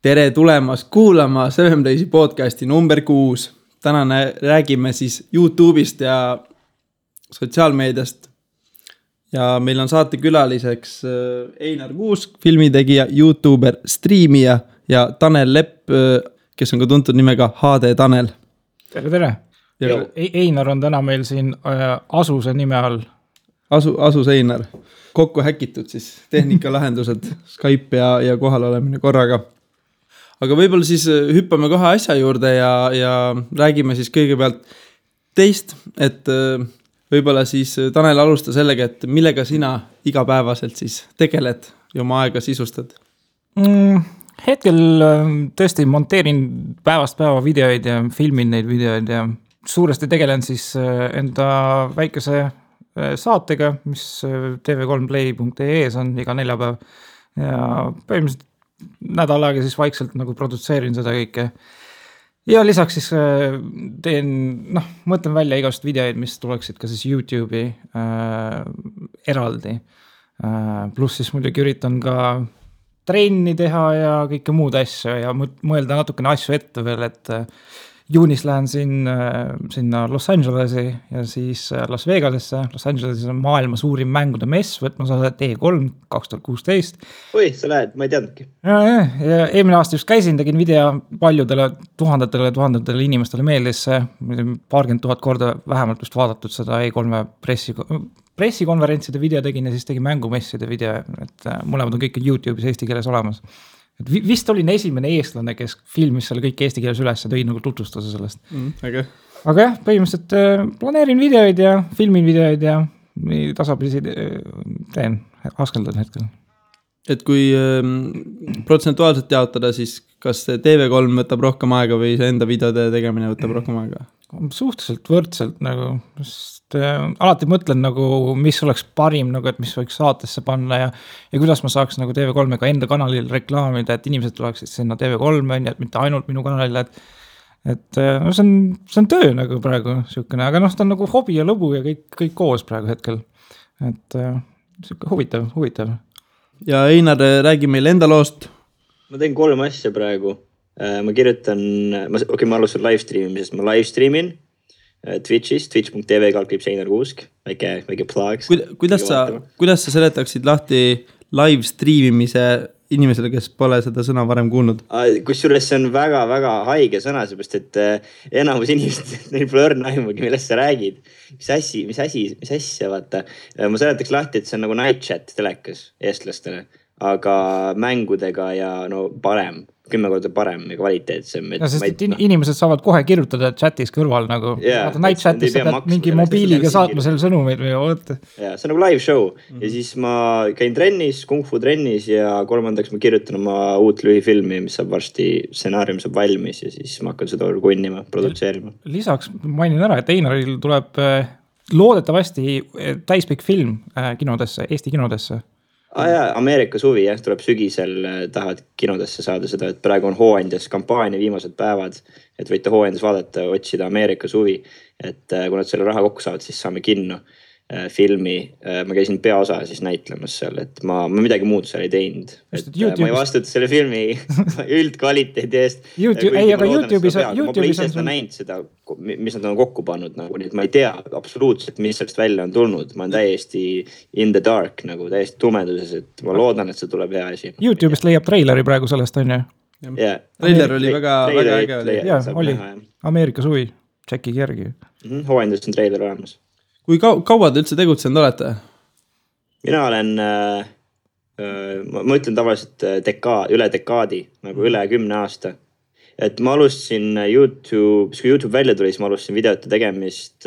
Tere tulemast kuulama 7 Daysi podcasti number 6. Täna räägime siis YouTube'ist ja sotsiaalmeediast. Ja meil on saate külaliseks Einar Kuusk, filmitegija, YouTuber, striimija ja Tanel Lepp, kes on ka tuntud nimega HD Tanel. Tere. Einar on täna meil siin Asuse nime all. Asus Einar. Kokku häkitud siis tehnikalahendused, Skype ja kohal olemine korraga. Aga võib-olla siis hüppame kohe asja juurde ja räägime siis kõigepealt teist, et võib-olla siis Tanel alusta sellega, et millega sina igapäevaselt siis tegeled ja oma aega sisustad? Hetkel tõesti monteerin päevast päeva videoid ja filmin neid videoid ja suuresti tegelen siis enda väikese saatega, mis tv3play.ee-s on iga neljapäev ja põhimõtteliselt nädal aega siis vaikselt nagu produtseerin seda kõike. Ja lisaks siis mõtlen välja igast videoid, mis tuleksid ka siis YouTube'i eraldi. Pluss siis muidugi üritan ka trenni teha ja kõike muud asju ja mõelda natukene asju ette veel, et juunis lähen sinna Los Angelesi ja siis Las Vegasesse. Los Angelesis on maailma suurim mängude mess, võtmas osa E3 2016. Oi, sa lähed, ma ei teadnudki. Ja eelmine aasta just käisin, tegin video paljudele tuhandetele inimestele meeldis see. 20,000 korda vähemalt vist vaadatud seda E3 pressikonverentside video tegin ja siis tegin mängumesside video, et mõlemad on kõik YouTube'is eesti keeles olemas. Et vist olin esimene eestlane, kes filmis selle kõik eesti keeles üles ja tõi nagu tutvustuse sellest. Okay. Aga jah, põhimõtteliselt planeerin videoid ja filmin videoid ja tasapisi teen, askeldan hetkel. Et kui protsentuaalselt jaotada, siis kas TV3 võtab rohkem aega või see enda videode tegemine võtab rohkem aega? Suhteliselt võrdselt nagu, sest alati mõtlen nagu, mis oleks parim, nagu, et mis võiks saatesse panna ja kuidas ma saaks nagu TV3-ga enda kanalil reklaamida, et inimesed tuleksid sinna TV3, et mitte ainult minu kanalile, et no, see on töö nagu praegu siukene, aga ta on nagu hobi ja lõbu ja kõik koos praegu hetkel, et siuke huvitav. Ja Einar, räägi meil enda loost. Ma teen 3 asja praegu. Ma kirjutan, ma alustan livestreamimisest, ma livestreamin Twitch'is, twitch.tv/Einar Kuusk, väike plug. Kuidas sa seletaksid lahti livestreamimise inimesele, kes pole seda sõna varem kuulnud? Kusjuures see on väga-väga haige sõna, seepärast, et enamus inimesed, neil pole õrna aimugi, millest sa räägid. Mis asja, vaata. Ma seletaks lahti, et see on nagu night chat telekas eestlastele, aga mängudega ja parem. 10 korda parem ja kvaliteetsem. Ja sest inimesed saavad kohe kirjutada chatis kõrval nagu. Night chatis sa pead mingi mobiiliga saatma selle sõnumeid või oota. Ja, see on nagu live show. Ja siis ma käin trennis, kung fu trennis ja 3. ma kirjutan oma uut lühifilmi, mis saab varsti, stsenaarium saab valmis ja siis ma hakkan seda kunnima, produtseerima. Lisaks mainin ära, et Einaril tuleb loodetavasti täispikk film kinodesse, Eesti kinodesse. Ameerika suvi, tuleb sügisel, tahavad kinodesse saada seda, et praegu on hooandjas kampaania viimased päevad, et võite hooandjas vaadata, otsida Ameerika suvi, et kui nad selle raha kokku saavad, siis saame kinno filmi. Ma käisin peaosa siis näitlemas seal, et ma midagi muud seal ei teinud. Ma ei vastuta selle filmi üldkvaliteedi eest. Aga YouTube'is ma pole ise seda näinud seda, mis nad on kokku pannud, nagu, nii et ma ei tea absoluutselt, mis sellest välja on tulnud. Ma olen täiesti in the dark, nagu täiesti tumeduses, et ma loodan, et see tuleb hea asi. YouTube'ist leiab treileri praegu sellest, on ju? Trailer oli väga äge. Oli. Ameerika suvi, tšekki järgi. Hooandjas on treiler olemas. Kui kaua te üldse tegutsenud olete? Mina olen, ma ütlen tavaliselt üle dekaadi, nagu üle 10 aasta. Et ma alustasin kui YouTube välja tuli, siis ma alustasin videote tegemist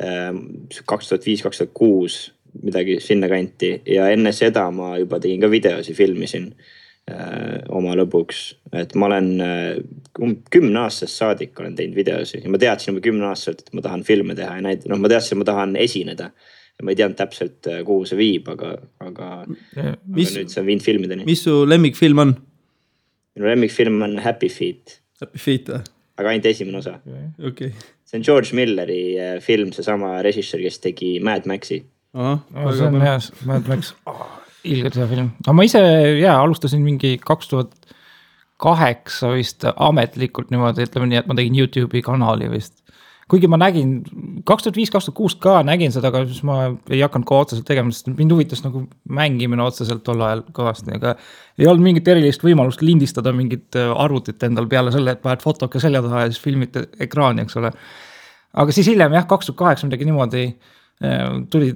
2005-2006, midagi sinna kanti. Ja enne seda ma juba tegin ka videosi, filmisin oma lõbuks. Et ma olen 10 aastast saadik olen teinud videosi ja ma teadsin juba 10 aastaselt, et ma tahan filme teha ja ma teadsin, et ma tahan esineda ja ma ei teadnud täpselt, kuhu see viib, aga nüüd see on viinud filmideni. Mis su lemmikfilm on? Minu lemmikfilm on Happy Feet. Happy Feet, või? Aga ainult esimene osa. Okay. See on George Milleri film, see sama režissöör, kes tegi Mad Maxi. See on hea, Mad Max. Ilgelt hea film. Aga ma ise alustasin mingi 2008 vist ametlikult niimoodi, ütleme nii, et ma tegin YouTube'i kanali vist. Kuigi ma nägin 2005-2006 ka nägin seda, aga siis ma ei hakanud ka otseselt tegema, sest mind huvitas nagu mängimine otseselt tol ajal kõvasti, aga ei olnud mingit erilist võimalust lindistada mingit arvutit endal peale selle, et paned fotoke selja taha ja siis filmid ekraani, eks ole. Aga siis hiljem jah, 2008 midagi niimoodi tuli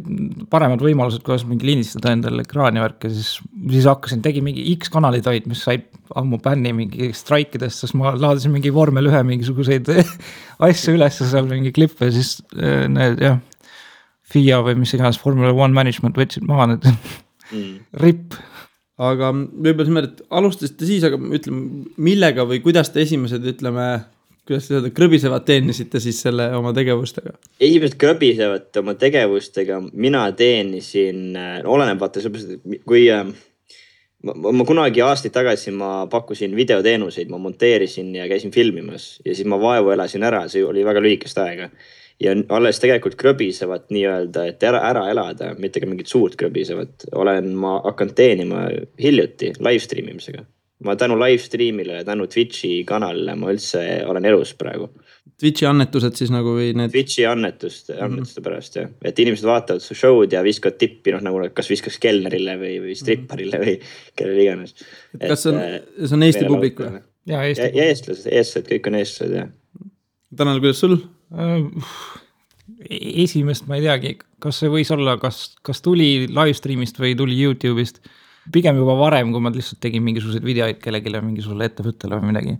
paremad võimalused, kuidas mingi lindistada endale ekraani värk ja siis hakkasin, tegin mingi X kanalid olid, mis said ammu bänni mingi straikidest, sest ma laadisin mingi vormel 1 mingisuguseid asju üles seal mingi klippe ja siis need jah, FIA või mis iganes Formula 1 management võtsid maha need ripp. Aga võib-olla see et alustasite siis, aga ütleme, millega või kuidas te esimesed, ütleme, kuidas te seda krõbisevad teenisite siis selle oma tegevustega? Esimesed krõbisevad oma tegevustega mina teenisin, oleneb vaata, kui ma kunagi aastaid tagasi ma pakkusin videoteenuseid, ma monteerisin ja käisin filmimas ja siis ma vaevu elasin ära, see oli väga lühikest aega. Ja alles tegelikult krõbisevad nii-öelda, et ära elada, mitte ka mingit suurt krõbisevad. Olen ma hakanud teenima hiljuti livestreamimisega. Ma tänu livestreamile ja tänu Twitchi kanalile ma üldse olen elus praegu. Twitchi annetused siis nagu või need? Twitchi annetuste pärast, jah. Et inimesed vaatavad su show'd ja viskavad tippi, nagu kas viskas kelnerile või stripparile või kellel iganes. Kas see on Eesti publik või? Ja eestlased, kõik on eestlased, jah. Tanel, kuidas sul? Esimest ma ei teagi, kas see võis olla, kas tuli livestreamist või tuli YouTube'ist. Pigem juba varem, kui ma lihtsalt tegin mingisuguseid videoid kellegile, mingisugusele ettevõttele või midagi.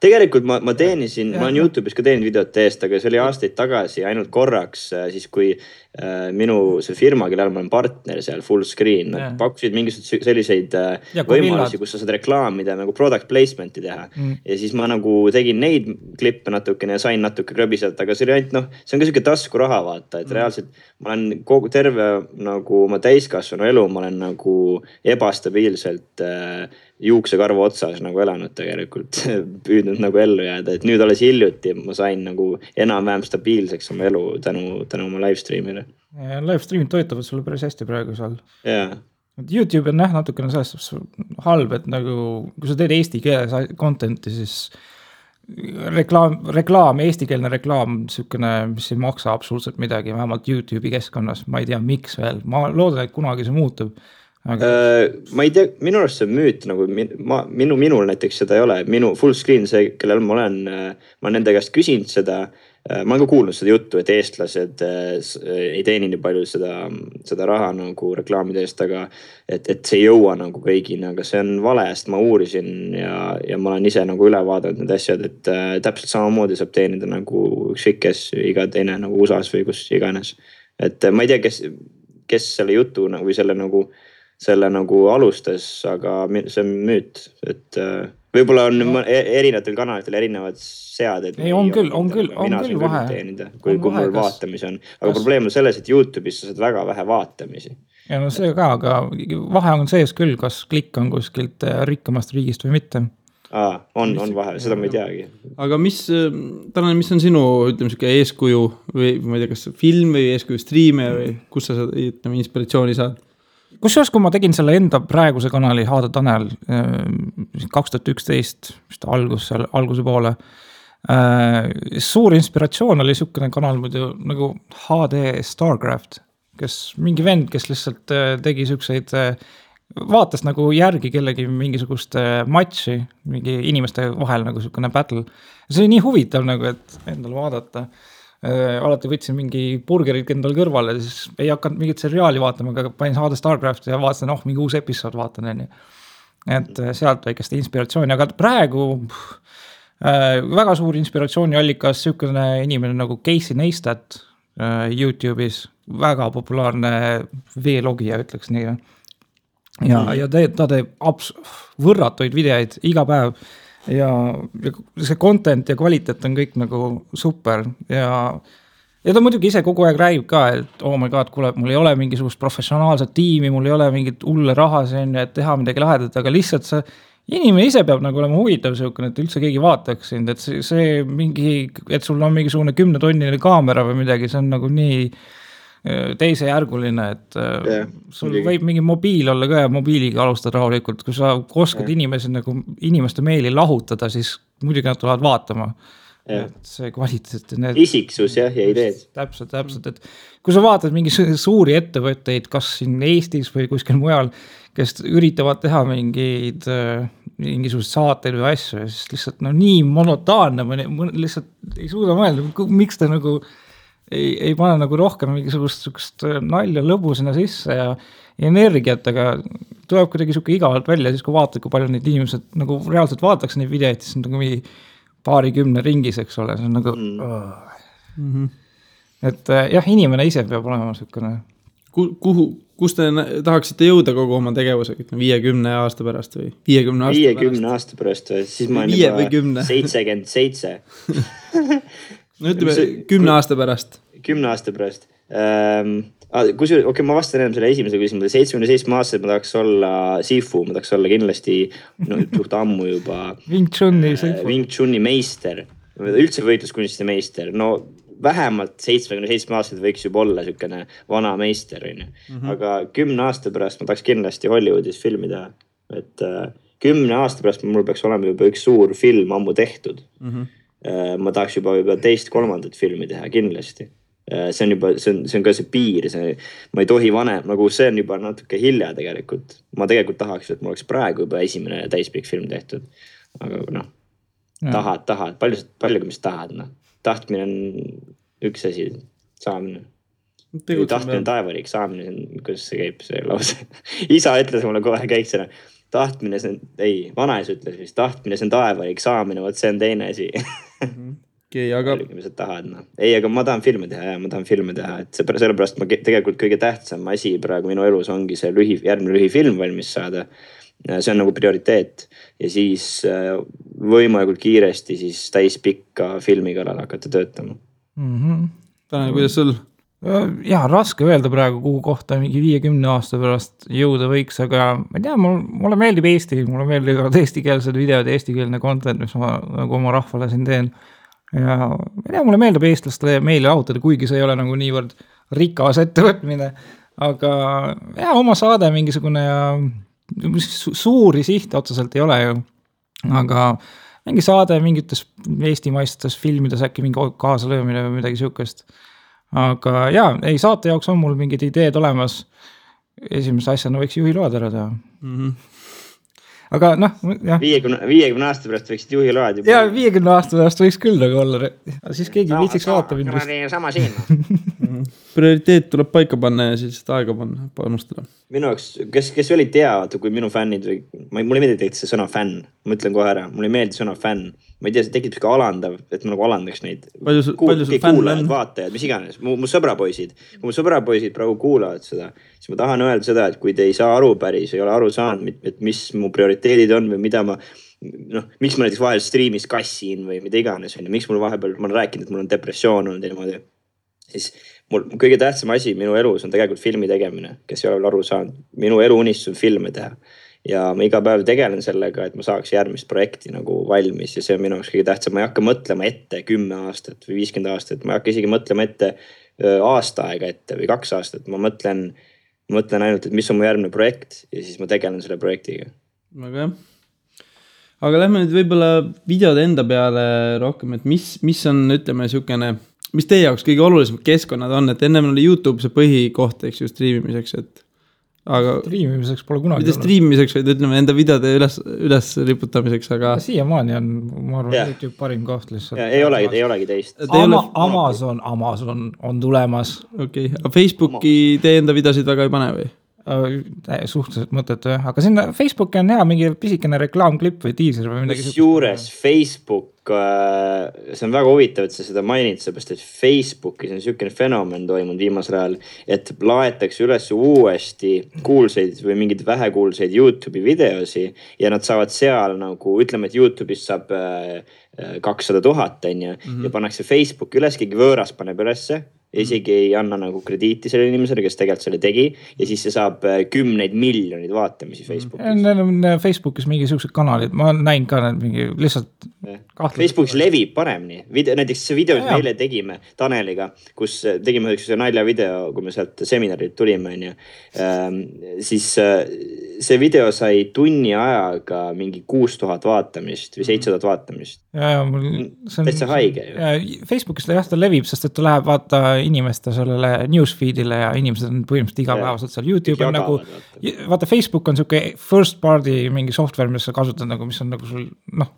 Tegelikult ma teenisin, ma olen YouTube'is ka teeninud videote eest, aga see oli aastaid tagasi ainult korraks, siis kui minu see firma, kellel ma olen partner seal full screen, nad pakkusid mingisuguseid selliseid võimalusi, kus sa saad reklaamida, nagu product placement'i teha. Ja siis ma nagu tegin neid klippe natukene ja sain natuke krõbiselt, aga see oli ainult, see on ka selline tasku raha vaata, et reaalselt ma olen kogu terve nagu oma täiskasvanu elu, ma olen nagu ebastabiilselt juuksekarva otsas nagu elanud tegelikult, püüdnud nagu ellu jääda, et nüüd alles hiljuti ma sain nagu enam-vähem stabiilseks oma elu tänu oma livestreamile. Ja livestreamid toetavad sulle päris hästi praegu seal. Jaa. YouTube on natukene sellest halb, et nagu kui sa teed eesti keeles contenti, siis reklaam, eestikeelne reklaam, sükene, mis ei maksa absoluutselt midagi, vähemalt YouTube'i keskkonnas, ma ei tea, miks veel, ma loodan, et kunagi see muutub. Aga... ma ei tea, minu arust see müüt, nagu minul näiteks seda ei ole, minu full screen see, kellel ma nende käest küsinud seda, ma olen ka kuulnud seda juttu, et eestlased ei teeni nii palju seda raha nagu reklaamide eest, aga et see ei jõua nagu kõigini, aga see on vale, sest ma uurisin ja ma olen ise nagu üle vaadanud need asjad, et täpselt samamoodi saab teenida nagu ükskõik iga teine nagu USAs või kus iganes. Et ma ei tea, kes selle jutu või selle nagu alustas, aga see on müüt, et võib-olla on erinevatel kanalitel erinevad seaded. Ei, on küll vahe. Teenida, kui mul vaatamis on. Aga probleem on selles, et YouTube'is sa saad väga vähe vaatamisi. Ja no see ka, aga vahe on sees küll, kas klikk on kuskilt rikkamast riigist või mitte. On vahe, seda ma ei teagi. Aga mis on sinu, ütleme, eeskuju või ma ei tea, kas film või eeskuju striime või kus sa inspiratsiooni saad? Kusjuures, kui ma tegin selle enda praeguse kanali Haada Tanel 2011 alguse poole, suur inspiratsioon oli sükene kanal muidu nagu HD Starcraft, kes mingi vend, kes lihtsalt tegi sükseid, vaatas nagu järgi kellegi mingisugust matši, mingi inimeste vahel nagu sükene battle. See oli nii huvitav nagu, et endale vaadata. Alati võtsin mingi burgerid endal kõrvale, siis ei hakanud mingit seriaali vaatama, aga panin HD Starcraft ja vaatasin, mingi uus episood vaatan. Et sealt väikest inspiratsiooni, aga praegu väga suur inspiratsiooni allikas sükene inimene nagu Casey Neistat YouTube'is, väga populaarne V-logija, ütleks nii. Ja ta teeb võrratuid videoid iga päev. Ja see content ja kvaliteet on kõik nagu super ja ta muidugi ise kogu aeg räägib ka, et oh my god, kuule, mul ei ole mingisugust professionaalset tiimi, mul ei ole mingit hulle raha siin, et teha midagi lahedat, aga lihtsalt see inimene ise peab nagu olema huvitav selline, et üldse keegi vaataks sind, et see mingi, et sul on mingisugune 10-tonnine kaamera või midagi, see on nagu nii teisejärguline, et sul võib mingi mobiil olla ka ja mobiiliga alustada rahulikult, kui sa oskad inimeste meeli lahutada, siis muidugi nad tulevad vaatama. Et see kvaliteet isiksus ja ideed. Täpselt, et kui sa vaatad mingi suuri ettevõtteid, kas siin Eestis või kuskil mujal, kes üritavad teha mingisugused saateid või asju ja siis lihtsalt nii monotaanne, lihtsalt ei suuda mõelda, miks ta nagu ei pane nagu rohkem mingisugust nalja lõbu sinna sisse ja energiat, aga tuleb kuidagi siuke igavalt välja, siis kui vaatad, kui palju neid inimesed nagu reaalselt vaataks neid videoid, siis on nagu mingi paarikümne ringis, eks ole, see on nagu et jah, inimene ise peab olema siukene. Kus te tahaksite jõuda kogu oma tegevusega, 50 aasta pärast või 50 aasta pärast või, siis ma olen juba 77. No ütleme 10 aasta pärast. 10 aasta pärast. Ma vastan enam selle esimese küsimusele. 77 aastaselt ma tahaks olla Sifu, ma tahaks olla kindlasti suht ammu juba Wing Chuni meister, üldse võitluskunstide meister. No vähemalt 77 aastaselt võiks juba olla siukene vana meister. Aga 10 aasta pärast ma tahaks kindlasti Hollywoodis filmi teha. Et 10 aasta pärast mul peaks olema juba üks suur film ammu tehtud. Ma tahaks juba 2-3 filmi teha kindlasti. See on ka see piir, ma ei tohi vanem, nagu see on juba natuke hilja tegelikult. Ma tegelikult tahaks, et mul oleks praegu juba esimene täispikk film tehtud. Aga tahad, palju mis tahad, tahtmine on üks asi, saamine. Tahtmine on taevariik, saamine, kuidas see käib, see lause. Isa ütles mulle kohe käiksena, tahtmine see on, vanaisa ütles vist, tahtmine see on taevariik, saamine, võt see on teine asi. Aga ma tahan filme teha, et sellepärast ma tegelikult kõige tähtsam asi praegu minu elus ongi see järgmine lühifilm valmis saada. See on nagu prioriteet ja siis võimalikult kiiresti siis täispikka filmi kallal hakata töötama. Tanel, kuidas sul? Jah, raske öelda praegu, kuhu kohta mingi 50 aasta pärast jõuda võiks, aga ma ei tea, mulle meeldib Eesti, mulle meeldib eestikeelsed videod, eestikeelne content, mis ma nagu oma rahvale siin teen. Ja mulle meeldib eestlaste meeli lahutada, kuigi see ei ole nagu niivõrd rikas ettevõtmine, aga oma saade mingisugune ja suuri sihte otseselt ei ole ju, aga mingi saade mingites eestimaistes filmides äkki mingi kaasalöömine või midagi siukest, aga saate jaoks on mul mingid ideed olemas, esimese asjana võiks juhiload ära teha. Aga jah. 50 aasta pärast võiksid juhiload juba. 50 aasta pärast võiks küll nagu olla. Siis keegi viitsiks vaata mind. Sama siin. Prioriteet tuleb paika panna ja siis aega panustada. Minu jaoks, kes olid teavad, kui minu fännid või, mulle ei meeldi see sõna fänn, ma ütlen kohe ära, mulle ei meeldi sõna fänn. Ma ei tea, see tekib ka alandav, et ma nagu alandaks neid. Palju sul fänn on? Vaatajad, mis iganes, mu sõbrapoisid. Kui mu sõbrapoisid praegu kuulavad seda, siis ma tahan öelda seda, et kui te ei saa aru päris, ei ole aru saanud, et mis mu prioriteedid on või mida ma, miks ma näiteks vahel striimis kassin või mida iganes, miks mul vahepeal, ma olen rääkinud, et mul on depressioon olnud niimoodi, siis mul kõige tähtsam asi minu elus on tegelikult filmi tegemine, kes ei ole veel aru saanud. Minu elu unistus on filme teha ja ma iga päev tegelen sellega, et ma saaks järgmist projekti nagu valmis ja see on minu jaoks kõige tähtsam. Ma ei hakka mõtlema ette 10 aastat või 50 aastat, ma ei hakka isegi mõtlema ette aasta aega ette või 2 aastat. Ma mõtlen ainult, et mis on mu järgmine projekt ja siis ma tegelen selle projektiga. Aga aga lähme nüüd võib-olla videode enda peale rohkem, et mis on, ütleme, siukene, mis teie jaoks kõige olulisemad keskkonnad on, et ennem oli YouTube see põhikoht, eks ju, striimimiseks, et aga striimimiseks pole kunagi mitte striimimiseks, vaid ütleme enda videode üles riputamiseks, aga siiamaani on, ma arvan, YouTube parim koht lihtsalt. Ei olegi teist. Amazon on tulemas. Okei, aga Facebooki teie enda videosid väga ei pane või? Suhteliselt mõttetu, aga sinna Facebooki on hea mingi pisikene reklaamklipp või tiiser või midagi. Juures Facebook, see on väga huvitav, et sa seda mainid, seepärast, et Facebookis on siukene fenomen toimunud viimasel ajal, et laetakse üles uuesti kuulsaid või mingid vähekuulsaid YouTube'i videosi ja nad saavad seal nagu, ütleme, et YouTube'is saab 200,000 ja pannakse Facebook üles, keegi võõras paneb ülesse. Isegi ei anna nagu krediiti selle inimesele, kes tegelikult selle tegi ja siis see saab 10 miljonid vaatamisi Facebookis. Neil on Facebookis mingi siuksed kanalid, ma näin ka need mingi lihtsalt Facebookis levib paremini. Näiteks see video, mis me eile tegime Taneliga, kus tegime üks naljavideo, kui me sealt seminarilt tulime, siis see video sai tunni ajaga mingi 6000 vaatamist või 7000 vaatamist. Täitsa haige ju. Facebookis ta levib, sest et ta läheb vaata inimeste sellele newsfeedile ja inimesed on põhimõtteliselt igapäevaselt seal. YouTube on nagu, vaata Facebook on siuke first party mingi software, mis sa kasutad nagu, mis on nagu sul,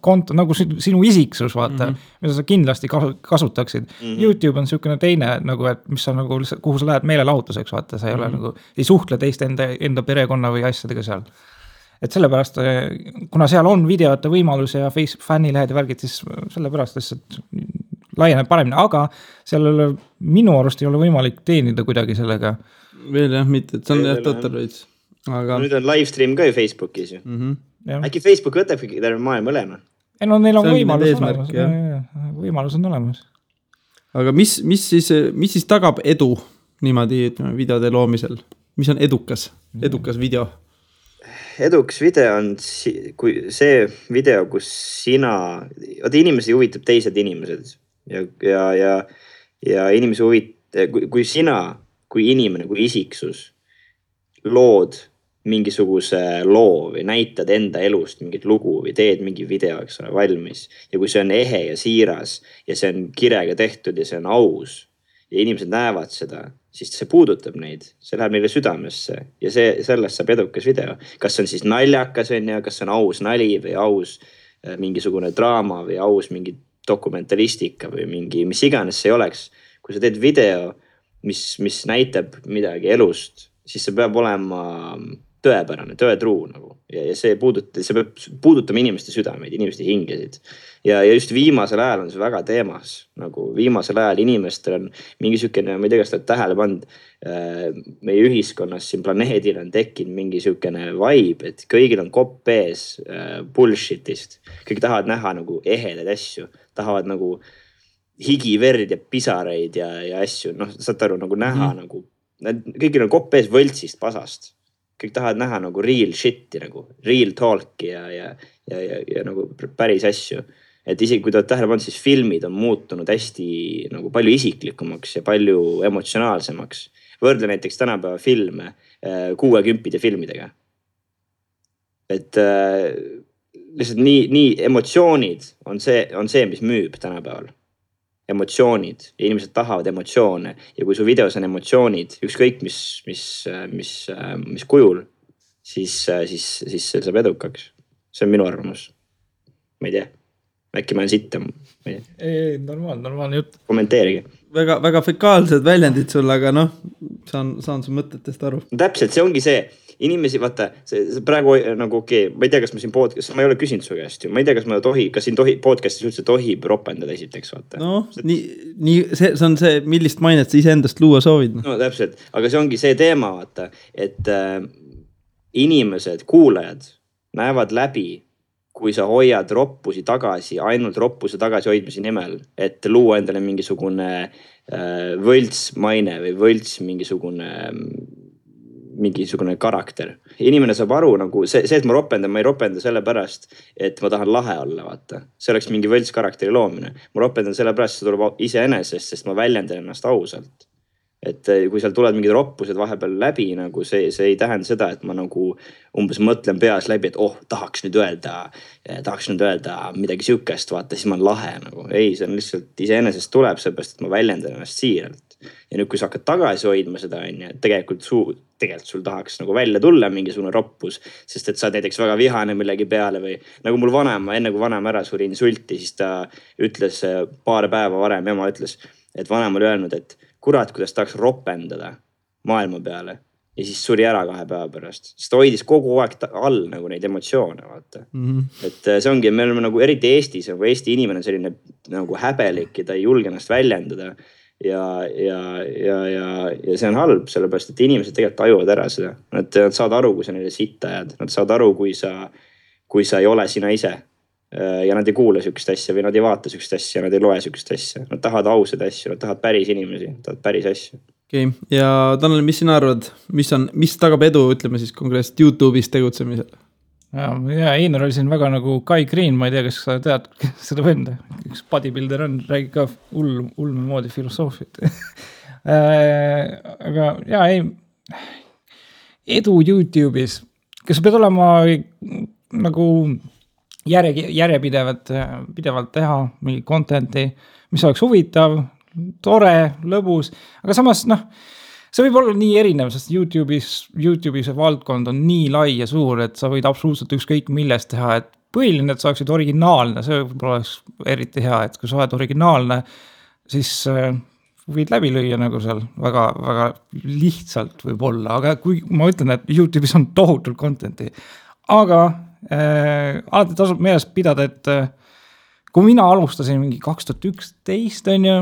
konto, nagu sinu isiksus, vaata, mida sa kindlasti kasutaksid. YouTube on siukene teine, nagu, et mis sa nagu, kuhu sa lähed meelelahutuseks, vaata, sa ei ole nagu, ei suhtle teiste enda perekonna või asjadega seal. Et sellepärast, kuna seal on videote võimalus ja Facebook fännilehed ja värgid, siis sellepärast lihtsalt laieneb paremini, aga sellele minu arust ei ole võimalik teenida kuidagi sellega. Veel jah, mitte, et see on jah total veits. Aga... Nüüd on livestream ka ju Facebookis ju. Äkki Facebook võtabki terve maailma olema? Ei, no neil on võimalus olemas. Võimalus on olemas. Aga mis siis tagab edu niimoodi, ütleme, videode loomisel? Mis on edukas video? Edukas video on see video, kus inimesi huvitab teised inimesed ja inimesi huvitab, kui sina, kui inimene, kui isiksus lood mingisuguse loo või näitad enda elust mingit lugu või teed mingi video, eks ole, valmis. Ja kui see on ehe ja siiras ja see on kirega tehtud ja see on aus ja inimesed näevad seda, siis see puudutab neid, see läheb neile südamesse ja sellest saab edukas video. Kas on siis naljakas, kas on aus nali või aus mingisugune draama või aus mingi dokumentalistika või mingi, mis iganes see oleks. Kui sa teed video, mis näitab midagi elust, siis see peab olema tõepärane, tõetruu nagu. Ja see peab puudutama inimeste südameid, inimeste hingesid. Ja just viimasel ajal on see väga teemas. Nagu viimasel ajal inimestel on mingi sükene, ma ei tea, kas ta tähele pand, meie ühiskonnas siin planeedil on tekkinud mingi sükene vibe, et kõigil on kopp ees bullshitist. Kõik tahavad näha nagu ehedaid asju, tahavad nagu higi, verd ja pisareid ja asju. Saad aru, nagu näha nagu, kõigil on kopp ees võltsist, pasast. Kõik tahavad näha nagu real shit'i, nagu real talk'i ja nagu päris asju. Et isegi kui ta tähele pannud, siis filmid on muutunud hästi nagu palju isiklikumaks ja palju emotsionaalsemaks. Võrdle näiteks tänapäeva filme 60 filmidega. Et lihtsalt nii emotsioonid on see, mis müüb tänapäeval. Emotsioonid ja inimesed tahavad emotsioone ja kui su videos on emotsioonid, ükskõik mis kujul, siis see saab edukaks. See on minu arvamus. Ma ei tea. Äkki ma olen sitta. Ei, normaalne jutt. Kommenteerige. Väga fekaalsed väljendid sul, aga saan su mõtetest aru. Täpselt, see ongi see. Inimesi, vaata, see praegu nagu ma ei tea, kas ma siin podcast, ma ei ole küsinud su käest ju, ma ei tea, kas siin podcastis üldse tohib ropendada esiteks, vaata. See on see, millist mainet sa iseendast luua soovid. No täpselt, aga see ongi see teema, vaata, et inimesed, kuulajad näevad läbi, kui sa hoiad roppusi tagasi, ainult roppuse tagasi hoidmise nimel, et luua endale mingisugune võlts maine või võlts mingisugune karakter. Inimene saab aru, nagu see, et ma ei ropenda selle pärast, et ma tahan lahe olla, vaata. See oleks mingi võlts karakteri loomine. Ma ropendan selle pärast, see tuleb iseenesest, sest ma väljendan ennast ausalt. Et kui seal tulevad mingid roppused vahepeal läbi, nagu see ei tähenda seda, et ma nagu umbes mõtlen peas läbi, et tahaks nüüd öelda midagi sükest, vaata, siis ma olen lahe nagu. Ei, see on lihtsalt iseenesest tuleb seepärast, et ma väljendan ennast siiralt. Ja nüüd, kui sa hakkad tagasi hoidma seda, tegelikult sul tahaks nagu välja tulla mingisugune roppus, sest et sa näiteks väga vihane millegi peale või nagu mul vanema, enne kui vanema ära suri insulti, siis ta ütles paar päeva varem, ema ütles, et vanem oli öelnud, et kurat, kuidas tahaks ropendada maailma peale ja siis suri ära 2 päeva pärast. Sest ta hoidis kogu aeg all nagu neid emotsioone, vaata. Et see ongi, me oleme nagu eriti Eestis, nagu Eesti inimene on selline nagu häbelik ja ta ei julge ennast väljendada. Ja see on halb, sellepärast, et inimesed tegelikult tajuvad ära seda. Nad saad aru, kui sa neile sitta jääd. Nad saad aru, kui sa ei ole sina ise. Ja nad ei kuule sükest asja või nad ei vaata sükest asja, nad ei loe sükest asja. Nad tahavad ausad asju, nad tahavad päris inimesi, nad tahavad päris asju. Okay. Ja Tanel, mis sina arvad, mis tagab edu, ütleme siis konkreetselt YouTube'is tegutsemisel? ja Einar oli siin väga nagu Kai Green, ma ei tea, kas sa tead seda venda, üks bodybuilder on, räägib ka ulme moodi filosoofiat. Aga ei, edu YouTube'is, kas pead olema nagu pidevalt teha mingi content'i, mis oleks huvitav, tore, lõbus, aga samas see võib olla nii erinev, sest YouTube'i see valdkond on nii lai ja suur, et sa võid absoluutselt ükskõik millest teha, et põhiline, et sa oleksid originaalne, see võib-olla oleks eriti hea, et kui sa oled originaalne, siis võid läbi lüüa nagu seal väga, väga lihtsalt võib-olla, aga kui ma ütlen, et YouTube'is on tohutult content'i, aga alati tasub meeles pidada, et kui mina alustasin mingi 2011 on ju,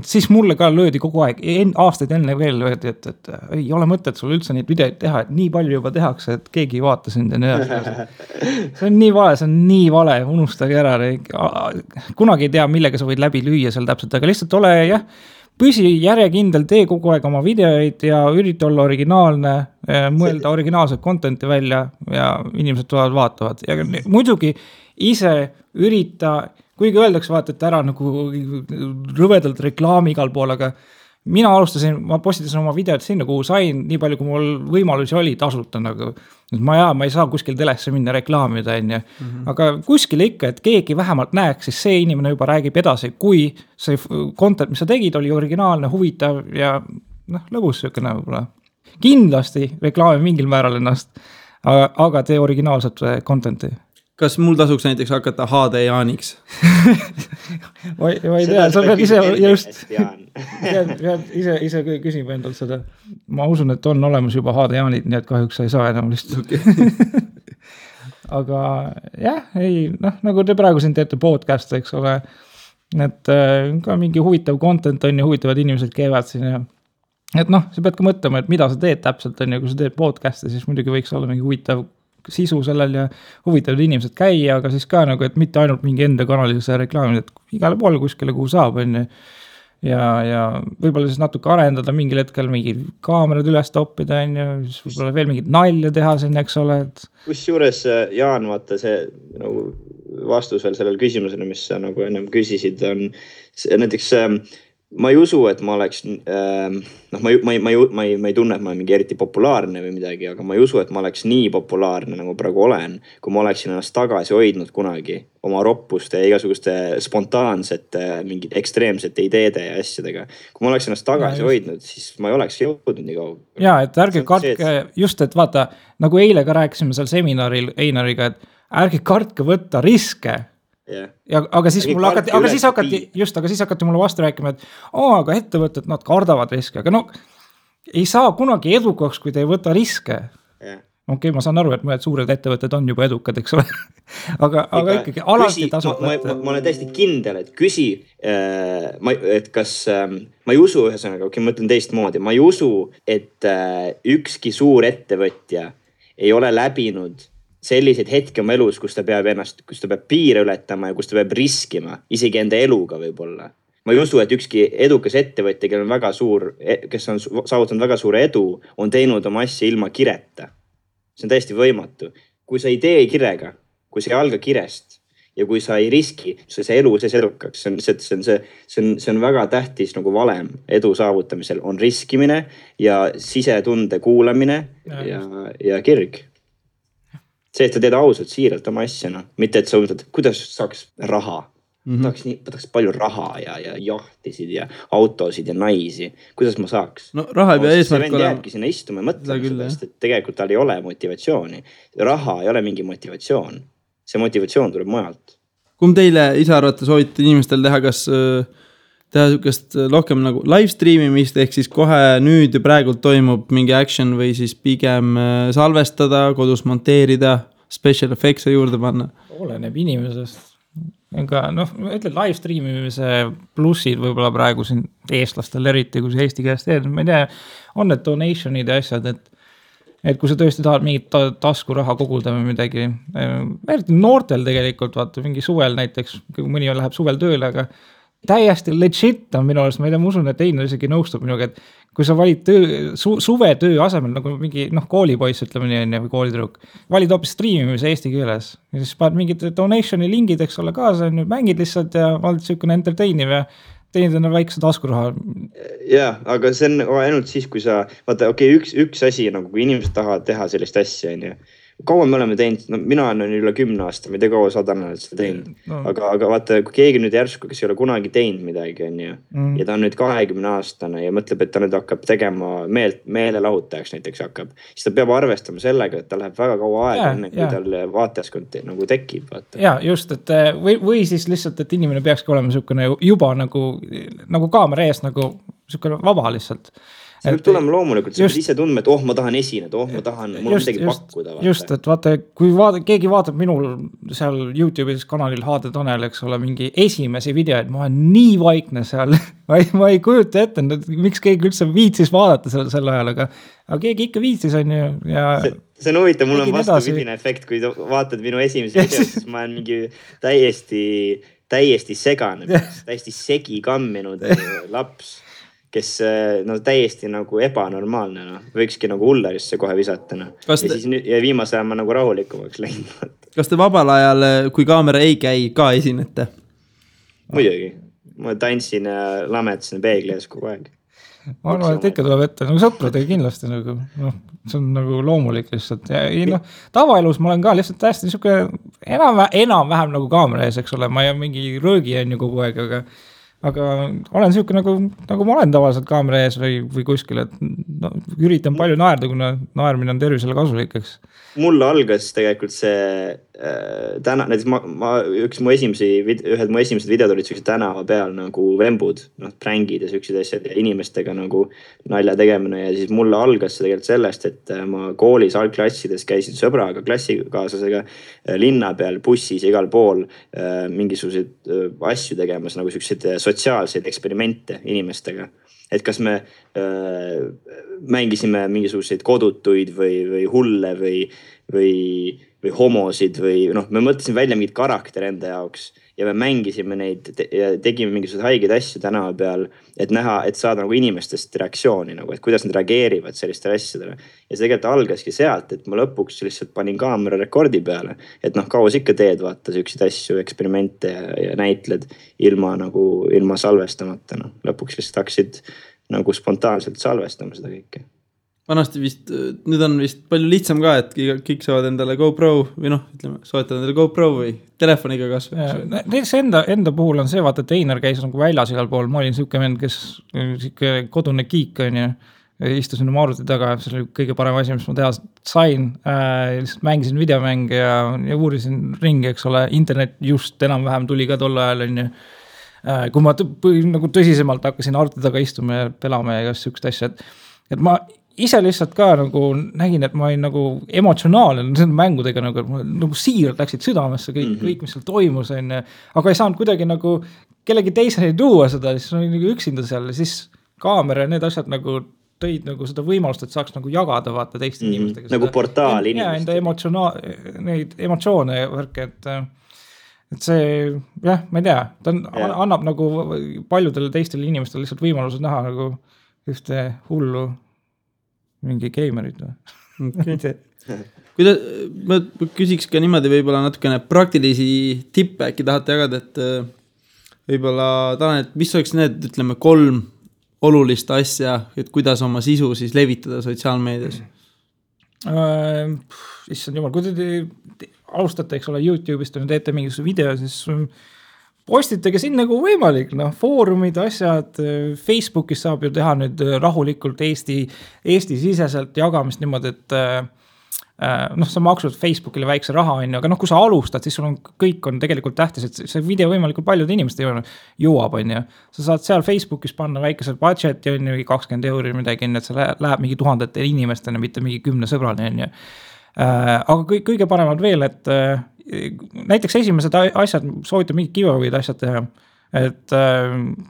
siis mulle ka löödi kogu aeg, aastaid enne veel löödi, et ei ole mõtet sul üldse neid videoid teha, et nii palju juba tehakse, et keegi ei vaata sind ja nii edasi. See on nii vale, unustage ära. Kunagi ei tea, millega sa võid läbi lüüa seal täpselt, aga lihtsalt ole püsi järjekindel, tee kogu aeg oma videoid ja ürita olla originaalne, mõelda originaalset content'i välja ja inimesed tulevad vaatavad. Ja muidugi ise ürita, kuigi öeldakse vaata, et ära nagu rõvedalt reklaami igal pool, aga mina alustasin, ma postitasin oma videot sinna, kuhu sain nii palju, kui mul võimalusi oli tasuta nagu. Ma ei saa kuskil telesse minna reklaamida, aga kuskil ikka, et keegi vähemalt näeks, siis see inimene juba räägib edasi, kui see content, mis sa tegid, oli originaalne, huvitav ja lõbus söökene võib-olla. Kindlasti reklaami mingil määral ennast, aga tee originaalset content'i. Kas mul tasuks näiteks hakata HD Jaaniks? Ma ei tea, sa pead ise just ise küsima endalt seda. Ma usun, et on olemas juba HD Jaanid, nii et kahjuks sa ei saa enam lihtsalt. Okay. Aga nagu te praegu siin teete podcast, eks ole, et ka mingi huvitav content on ja huvitavad inimesed käivad siin ja et sa pead ka mõtlema, et mida sa teed täpselt on ja kui sa teed podcast'i, siis muidugi võiks olla mingi huvitav sisu sellel ja huvitavad inimesed käia, aga siis ka nagu, et mitte ainult mingi enda kanalise reklaamid, et igale poole kuskile, kuhu saab, on ja võib-olla siis natuke arendada mingil hetkel mingi kaamerad üles toppida, on ja siis võib-olla veel mingid nalja teha siin, eks ole. Kusjuures, Jaan, vaata see nagu vastus veel sellel küsimusele, mis sa nagu ennem küsisid, on näiteks ma ei usu, et ma oleks, ma ei tunne, et ma olen mingi eriti populaarne või midagi, aga ma ei usu, et ma oleks nii populaarne, nagu praegu olen, kui ma oleksin ennast tagasi hoidnud kunagi oma roppuste ja igasuguste spontaansete, mingid ekstreemsete ideede ja asjadega. Kui ma oleks ennast tagasi hoidnud, siis ma ei oleks jõudnud nii kaua. Jaa, et ärge kartke, just et vaata, nagu eile ka rääkisime seal seminaril Einariga, et ärge kartke võtta riske. Yeah. Aga siis hakati mulle vastu rääkima, et aga ettevõtted, nad kardavad riske, aga ei saa kunagi edukaks, kui te ei võta riske. Yeah. Okei, ma saan aru, et mõned suured ettevõtted on juba edukad, eks ole. aga ikkagi alati tasub võtta. Ma olen täiesti kindel, et küsi, et kas, ma ei usu ühesõnaga, ma ütlen teistmoodi, ma ei usu, et ükski suur ettevõtja ei ole läbinud selliseid hetki oma elus, kus ta peab piire ületama ja kus ta peab riskima, isegi enda eluga võib-olla. Ma ei usu, et ükski edukas ettevõtja, kes on saavutanud väga suure edu, on teinud oma asja ilma kireta. See on täiesti võimatu. Kui sa ei tee kirega, kui sa ei alga kirest ja kui sa ei riski, see elu sees edukaks, see on väga tähtis nagu valem edu saavutamisel, on riskimine ja sisetunde kuulamine ja kirg. See, et sa teed ausalt, siiralt oma asja, mitte et sa mõtled, kuidas saaks raha. Võtaks palju raha ja jahtisid ja autosid ja naisi. Kuidas ma saaks? No raha ei pea eesmärk olema. See vend jääbki sinna istuma ja mõtlema sellest, et tegelikult tal ei ole motivatsiooni. Raha ei ole mingi motivatsioon. See motivatsioon tuleb mujalt. Kumb teile ise arvate soovitate inimestel teha, kas teha sükest rohkem nagu live streamimist, ehk siis kohe nüüd ja praegult toimub mingi action või siis pigem salvestada, kodus monteerida, special effects juurde panna? Oleneb inimesest. Aga ütle live streamimise plussid võib-olla praegu siin eestlastel eriti, kui see Eesti käest teed. Ma ei tea, on need donationid ja asjad, et kui sa tõesti tahad mingit taskuraha koguda või midagi. Eriti noortel tegelikult, vaata, mingi suvel näiteks, kui mõni läheb suvel tööle, aga täiesti legit on minu arust, ma ei tea, ma usun, et Einar isegi nõustub minuga, et kui sa valid suvetöö asemel nagu mingi koolipoiss, ütleme nii, või koolitüdruk, valid hoopis striimimise eesti keeles ja siis paned mingid donationi lingid, eks ole, kaasa, mängid lihtsalt ja oled niisugune entertainiv ja teenid enne väikse taskuraha. Jaa, aga see on ainult siis, kui sa, vaata, üks asi, nagu kui inimesed tahavad teha sellist asja, kaua me oleme teinud, no mina olen üle 10 aasta, ma ei tea kaua sadanalt seda teinud, aga vaata, kui keegi nüüd järsku, kes ei ole kunagi teinud midagi, ja ta on nüüd 20-aastane ja mõtleb, et ta nüüd hakkab tegema meelelahutajaks näiteks hakkab, siis ta peab arvestama sellega, et ta läheb väga kaua aega enne, kui tal vaatajaskond nagu tekib. Vaata. Ja just, et või siis lihtsalt, et inimene peakski olema niisugune juba nagu kaamera ees, nagu niisugune vaba lihtsalt. See võib tulema loomulikult, sa pead ise tundma, et ma tahan esineda, ma tahan, mul on midagi pakkuda. Vaata. Just, et vaata, kui keegi vaatab minul seal YouTube'is kanalil HD Tanel, eks ole, mingi esimesi videoid, ma olen nii vaikne seal, ma ei kujuta ette, miks keegi üldse viitsis vaadata sel ajal, aga keegi ikka viitsis on ju. Ja see on huvitav, mul on vastupidine efekt, kui vaatad minu esimesi videoid, siis ma olen mingi täiesti segane, täiesti segi kamminud laps. Kes täiesti nagu ebanormaalne, võikski nagu hullerisse kohe visata. Ja viimase ajal ma nagu rahulikumaks läinud. Kas te vabal ajal, kui kaamera ei käi, ka esinete? Muidugi. Ma tantsin ja lametasin peegli ees kogu aeg. Ma arvan, et ikka tuleb ette, nagu sõpradega kindlasti, nagu, see on nagu loomulik lihtsalt. Ja, tavaelus ma olen ka lihtsalt täiesti niisugune enam-vähem nagu kaamera ees, eks ole, ma ei mingi röögi on ju kogu aeg, aga olen niisugune nagu ma olen tavaliselt kaamera ees või kuskil, et üritan palju naerda, kuna naermine on tervisele kasulikeks. Mulle algas tegelikult see täna, näiteks ühed mu esimesed videod olid sellised tänava peal nagu vembud, prängid ja sellised asjad ja inimestega nagu nalja tegemine ja siis mulle algas see tegelikult sellest, et ma koolis algklassides käisin sõbraga, klassikaaslasega linna peal, bussis igal pool mingisuguseid asju tegemas, nagu sellised sotsiaalseid eksperimente inimestega. Et kas me mängisime mingisuguseid kodutuid või hulle või homosid või me mõtlesime välja mingid karakter enda jaoks ja me mängisime neid ja tegime mingisuguseid haigeid asju tänava peal, et näha, et saada nagu inimestest reaktsiooni, nagu, et kuidas nad reageerivad sellistele asjadele. Ja see tegelikult algaski sealt, et ma lõpuks lihtsalt panin kaamera rekordi peale, et kauas ikka teed vaata selliseid asju, eksperimente ja näitled ilma salvestamata. Lõpuks lihtsalt hakkasid nagu spontaanselt salvestama seda kõike. Vanasti vist, nüüd on vist palju lihtsam ka, et kõik saavad endale GoPro või soetavad endale GoPro või telefoniga kasvõi. See enda puhul on see, vaata, et Einar käis nagu väljas igal pool, ma olin niisugune vend, kes kodune kiik on ja istusin oma arvuti taga, see oli kõige parem asi, mis ma teha sain, lihtsalt mängisin videomänge ja uurisin ringi, eks ole, internet just enam-vähem tuli ka tol ajal on ju. Kui ma nagu tõsisemalt hakkasin arvuti taga istuma ja pelama ja sihukest asja, et ma ise lihtsalt ka nagu nägin, et ma olin nagu emotsionaalne nende mängudega nagu siiralt läksid südamesse kõik, mis seal toimus, aga ei saanud kuidagi nagu kellegi teiseni tuua seda, siis olin nagu üksinda seal ja siis kaamera ja need asjad nagu tõid nagu seda võimalust, et saaks nagu jagada vaata teiste inimestega. Nagu portaal inimestega. Ja enda neid emotsioone ja värke, et see, jah, ma ei tea, ta annab nagu paljudele teistele inimestele lihtsalt võimalused näha nagu ühte hullu mingi geimerid või? Okay. Ma küsiks ka niimoodi võib-olla natukene praktilisi tippe äkki tahate jagada, et võib-olla Tanel, et mis oleks need, ütleme, 3 olulist asja, et kuidas oma sisu siis levitada sotsiaalmeedias? Issand jumal, kui te alustate, eks ole, YouTube'ist ja teete mingisuguse video, siis postitage siin nagu võimalik, foorumid, asjad, Facebookis saab ju teha nüüd rahulikult Eesti siseselt jagamist niimoodi, et sa maksud Facebookile väikse raha, aga kui sa alustad, siis sul on kõik on tegelikult tähtis, et see video võimalikult paljude inimeste jõuab, on ju. Sa saad seal Facebookis panna väikesel budget ja on ju 20 € midagi, et see läheb mingi 1000 inimestena, mitte mingi 10 sõbrani, on ju. Aga kõige paremad veel, et näiteks esimesed asjad, soovitab mingi giveaway'd asjad teha, et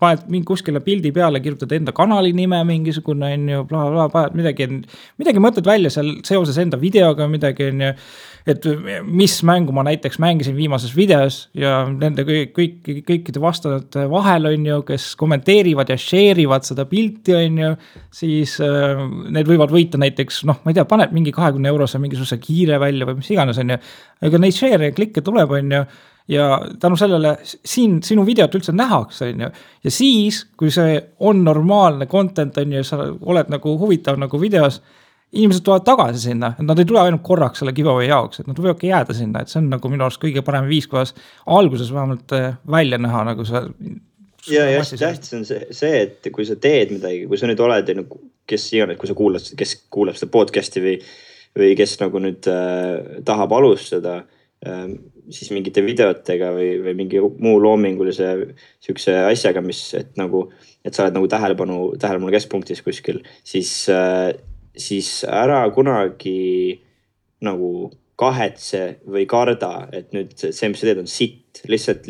paned mingi kuskile pildi peale, kirjutad enda kanali nime mingisugune, on ju, paned midagi mõtled välja seal seoses enda videoga, midagi, on ju, et mis mängu ma näiteks mängisin viimases videos ja nende kõikide vastajate vahel, on ju, kes kommenteerivad ja share'ivad seda pilti, on ju, siis need võivad võita näiteks, noh, ma ei tea, paned mingi 20 eurose mingisuguse kiire välja või mis iganes, on ju, aga neid share ja klikke tuleb, on ju, ja tänu sellele siin sinu videot üldse nähakse, on ju, ja siis, kui see on normaalne content, on ju, sa oled nagu huvitav nagu videos, inimesed tulevad tagasi sinna, et nad ei tule ainult korraks selle giveaway jaoks, et nad võivadki jääda sinna, et see on nagu minu arust kõige parem viis, kuidas alguses vähemalt välja näha nagu see. Ja hästi tähtis on see, et kui sa teed midagi, kui sa nüüd oled, kes iganes, kui sa kes kuulab seda podcasti või kes nagu nüüd tahab alustada, siis mingite videotega või mingi muu loomingulise siukse asjaga, et sa oled nagu tähelepanu keskpunktis kuskil, siis ära kunagi nagu kahetse või karda, et nüüd see, mis sa teed, on sitt. Lihtsalt